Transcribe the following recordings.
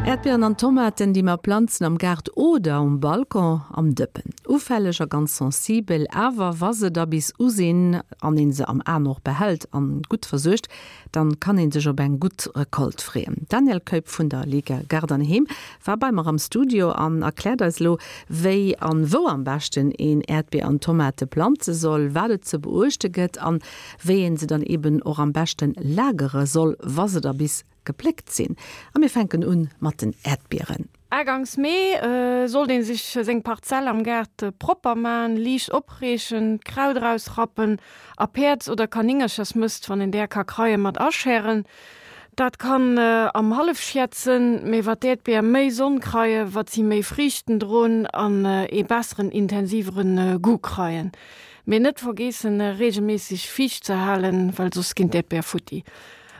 Äerdbieren an Tomaten, déi mer planzen am Gaart oder um Balcon am Dëppen. Ufälleg a ganz sensibel, awer wa se da bis u sinn an een se am Aen och behält an gutt versuergt, dann kann een sech op eng gutt Recolte freeën. D'Danièle Keup vun der Liga Gaart an Heem war bei mer am Studio an erkläert eis elo, wéi an wou am beschten een Äerdbier an Tomate planze soll, wat et ze beuechte gëtt an wéi een se dann eben och am beschten lagere soll, wa se da bis gepléckt sinn. A mir fänken un mat den Äerdbieren. Agangs Mee sollt een sech seng Parzell am Gaart propper man, liicht opreechen, d'Kraut erausrappen a Päerds oder Kanéngerchersmëst, wann een där ka kreien, mat aschären. Dat kann am Hallefschiet sënn, mee wat d'Äerdbier méi Sonn kreie, wat si méi Friichten droen an ee besseren, intensivere Goût kreien. Mee net vergeessen regelméisseg fiicht ze halen, well soss ginn d'Äerdbier futti.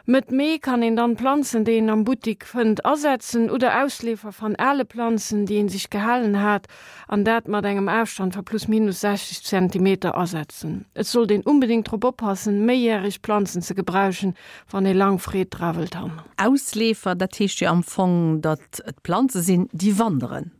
Mëtt Mee kann een dann Planzen, déi een am Buttik fënnt, asetzen oder Ausleefer van ale Planzen, déi een sich gehalen hat, an dat mat engem Aafstand va plus minus 60 Zentimeter asetzen. Et sollt een unbedingt drop oppassen, méijährig Planzen ze gebrauschen, wann ee lang Freed dra wëllt han. Ausleefer, dat heescht jo am Fong, datt et Planze sinn, déi wanderen.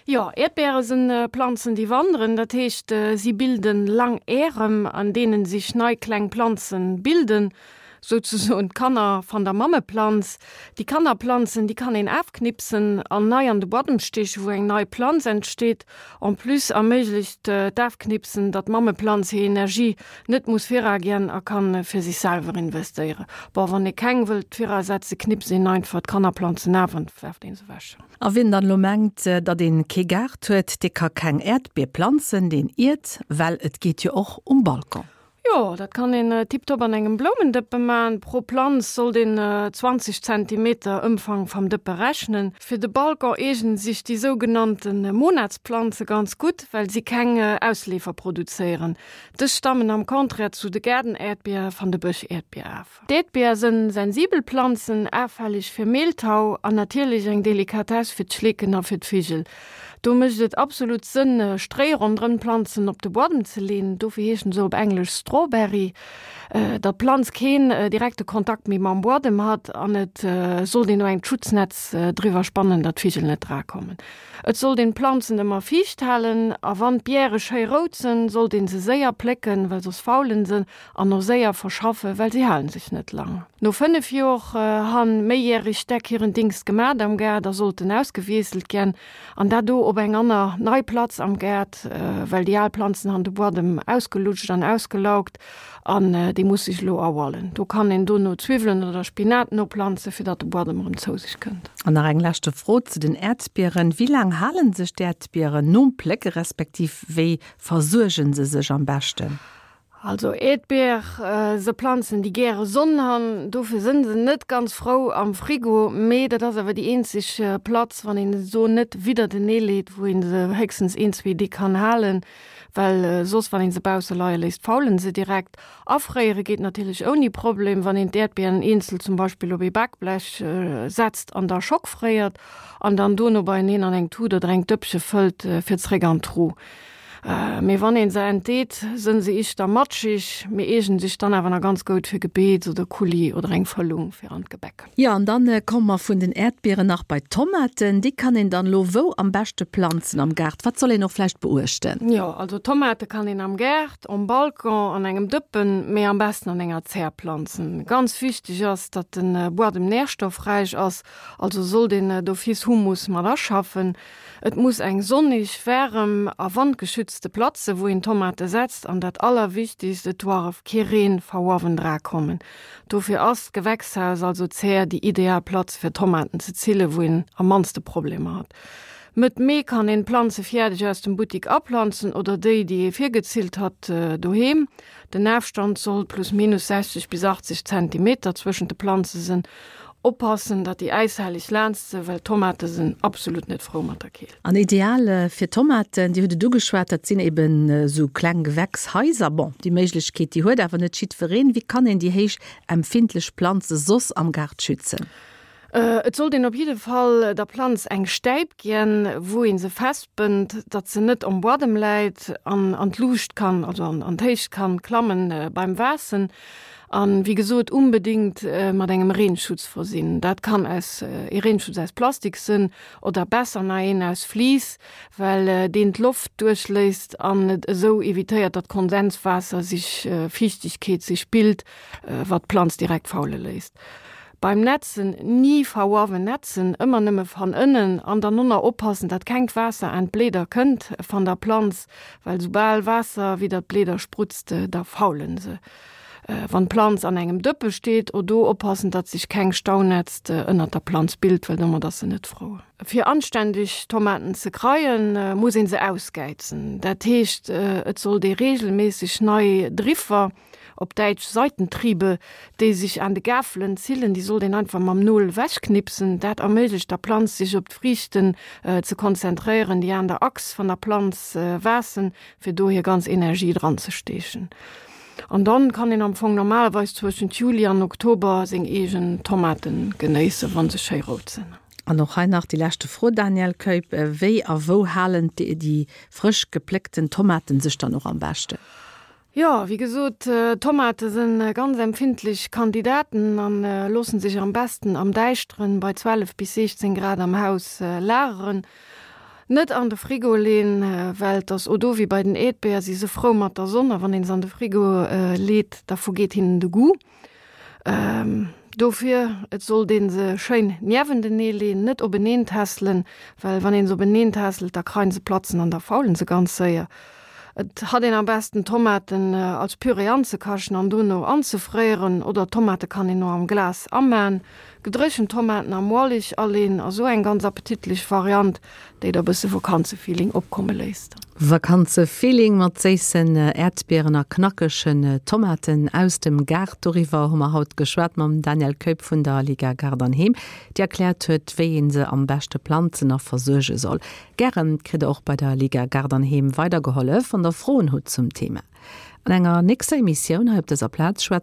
Jo, Äerdbeere sinn Planzen, déi wanderen. Dat heescht, si bilden lang Ärem, an deenen sich nei kleng Planzen bilden, souzesoen d'Kanner van der Mammeplanz. Déi Kannerplanzen, déi kann een aafknipsen an nei an de Buadem steechen, wou eng nei Planz entsteet. En plus erméiglecht d'Aafknipsen, datt d'Mammeplanz hir Energie net muss viragien a kann fir sich selwer investéieren. Bon, wann ee keng wëllt virasetzen, knipst een einfach d'Kannerplanzen aaf an werft een se wech. A wien dann elo mengt, datt een kee Gaart huet, dee ka keng Äerdbier planzen, deen iert, well et geet jo och um Balcon. Jo, dat kann een tiptop an engem Bloumendëppe man. Pro Planz sollt een 20 Zentimeter Ëmfang vam Dëppe rechnen. Fir de Balcon eegnen sich déi sougenannten Monatsplanze ganz gutt, well si keng Ausleefer produzéieren. Dës stammen am Contraire zu de Gaardenäerdbier van de Bëschäerdbier af. D'Äerdbier sënn sensibel Planzen, afälleg fir Mehltau an natierlech eng Delikatess fir d'Schleeken a fir d'Vigel. Do mécht et absolut Sënn, Stréi ronderëm d'Planzen op de Buadem ze leen, dofir heeschen se op Englesch Strawberry, datt d'Planz keen direkte Kontakt méi mam Buadem hat an et sollt een och engt Schutznetz driwwer spannen, datt d'Vigel net drakommen. Et sollt een d'Planzen ëmmer fiicht halen a wann d'Biere schéi rout sënn, sollt een se séier plécken, well soss faulen se. An och séier verschaffe, well si halen sech net lang. No 5 Jor han méijährig Stäck hiren Dingst gemat am Gaart a sollten ausgewiesselt gän, an dat do op eng anner nei Platz am Gaart, well déi al Planzen han de Buadem ausgelutscht an ausgelaugt an dee muss sech elo erhualen. Do kann een dono Zwiwwelen oder Spinat noplanzen, fir datt de Buadem erëm zou sech kënnt. An nach eng leschte Fro zu den Äerdbieren, Wéi laang halen sech d'Äerdbieren nom Plécke respektiv wéi versuergen se sech am beschten? Also Äerdbier se Planzen déi gäre Sonn han, dofir sënn se net ganz frou am Frigo, mee dat ass awer déi eenzeg Platz, wann een se do net widdertenee leet, wou een se héchstens een, zwee Deeg kann halen, well soss wann een se bausse leie léisst, faulen se direkt. Afréiere geet natierlech ouni Problem, wann een d'Äerdbieren eenzel zum Beispill op ee Bakblech setzt an da schockfréiert an dann dono beieneen an eng Tut oder eng Dëppche fëllt fir zréck an d'Truh. Mee wann een se entdeet, sënn se ischter matschig, mee eegen sich dann awer na ganz goud fir Gebeets oder Coulis oder eng Fëllung fir an d'Gebäck. Jo, an dann komme mer vun den Äerdbieren nach bei d'Tomaten. Déi kann een dann elo wou am beschte planzen am Gaart? Wat soll een och vläicht beuechten? Jo, also Tomate kann een am Gaart, om Balcon, an engem Dëppen, mee am besten an enger Zär planzen. Ganz wichteg ass, datt den Buadem nährstoffräich ass, also sollt een d'office Humus mat aschaffen. Et muss eng sonnig, waarem a wandgeschützte Platz se wou een Tomate setzt an dat allerwichtigst, et doarf kee Reen va uawen dra kommen. Dofir ass d'Gewächshaus, also d'Zär, déi ideal Platz fir Tomaten ze zillen, wou een am mannste Problemer hat. Mëtt Mee kann een d'Planze fiärdeg aus dem Buttik aplanzen oder déi, déi ee virgezillt hat, doheem. Den Aafstand soll plus minus 60 bis 80 Zentimeter zwëschent de Planze sen. Oppassen datt déi äishelleg laanst se, well Tomate sen absolut net frou mat der Keelt. An ideal fir Tomaten, Dir hutt et ugeschwat, dat sinn eben esou kleng Gewächshaiser. Bon, déi Méiglechkeet, déi huet awer net jiddwereen. Wéi kann een déi héich empfindlech Planze soss am Gaart schützen? Et sollt een op jidde Fall der Planz eng Stäip gien, wou ee se festbënnt, datt se net om Buadem läit an an d'Luucht kann, also an d'Héicht kann klammen beim Waassen. An, wéi gesot, unbedingt mat engem Reenschutz versinn. Dat kann aus ee Reenschutz aus Plastik sënn oder besser nach een aus Vlies, well deen d'Loft duerchléisst an et esou evitéiert, datt Kondenswaasser sich, Fiichtegkeet sich bilt, wat d'Planz direkt faule léisst. Beim Nätzen ni va uawen nätzen, ëmmer nëmme van ënnen an dann nonner oppassen, dat kengt Waasser aan d'Bläder kënnt van der Planz, well soubal Waasser widder d'Bläder sprutzt, da faulen se. Wann d'Planz an engem Dëppe steet, o do oppassen, datt sich keng Staunätzt ënnert der Planz bilt, well domat ass se net frou. Fir anständeg Tomaten ze kreien, muss een se ausgäizen. Dat heescht, et sollt ee regelméisseg nei Driffer, op Däitsch Seitentriebe, déi sech aan de Gafelen zillen, déi sollt een einfach mam Nol ewechknipsen. Dat erméiglecht der Planz sech op d'Friichten ze konzentréieren, déi aan der Achs van der Planz waassen, fir do hir ganz Energie dran ze steechen. An dann kann een am Fong normalerweis zwëschent Juli an Oktober seng eegen Tomaten genéissen, wann se schéi rout sinn. An och hei nach déi leschte Fro, Danièle Keup, Wéi a wou halen déi frësch gepléckten Tomaten sech dann och am beschten? Jo, wéi gesot, Tomate sinn ganz empfindlech Kandidaten an loossen sech am besten am Däischteren bei 12 bis 16 Grad am Haus lageren. Net an de Frigo leen, well et ass o do wéi bei den Äerdbeer, si se frou mat der Sonn a wann een se an de Frigo leet, da vergeet hinnen de Goût. Dofir, et sollt een se schéin niewentenee leen, net openeen tässelen, well wann een se openeen tässelt, da kreien se Platzen an da faulen se ganz séier. Et hat een am besten Tomaten als Püree anzekachen an dono anzefréieren, oder Tomate kann een o am Glas amaan. Gedréchent Tomaten am Ualig aleen ass o eng ganz appetitlich Variant, déi der bësse Vakanzefeeling opkomme léisst. Vakanzefeeling mat séissen Äerdbieren a knackegen Tomaten aus dem Gaart, doriwwer hu mer haut geschwat mam Danièle Keup vun der Liga Gaart an Heem, déi erkläert huet, wéi een se am beschte planzen a versuerge soll. Gären kritt der och bei der Liga Gaart an Heem weidergehollef, wann der Froen hutt zum Thema. An enger nächster Emissioun hei op dëser Plaz schwätze.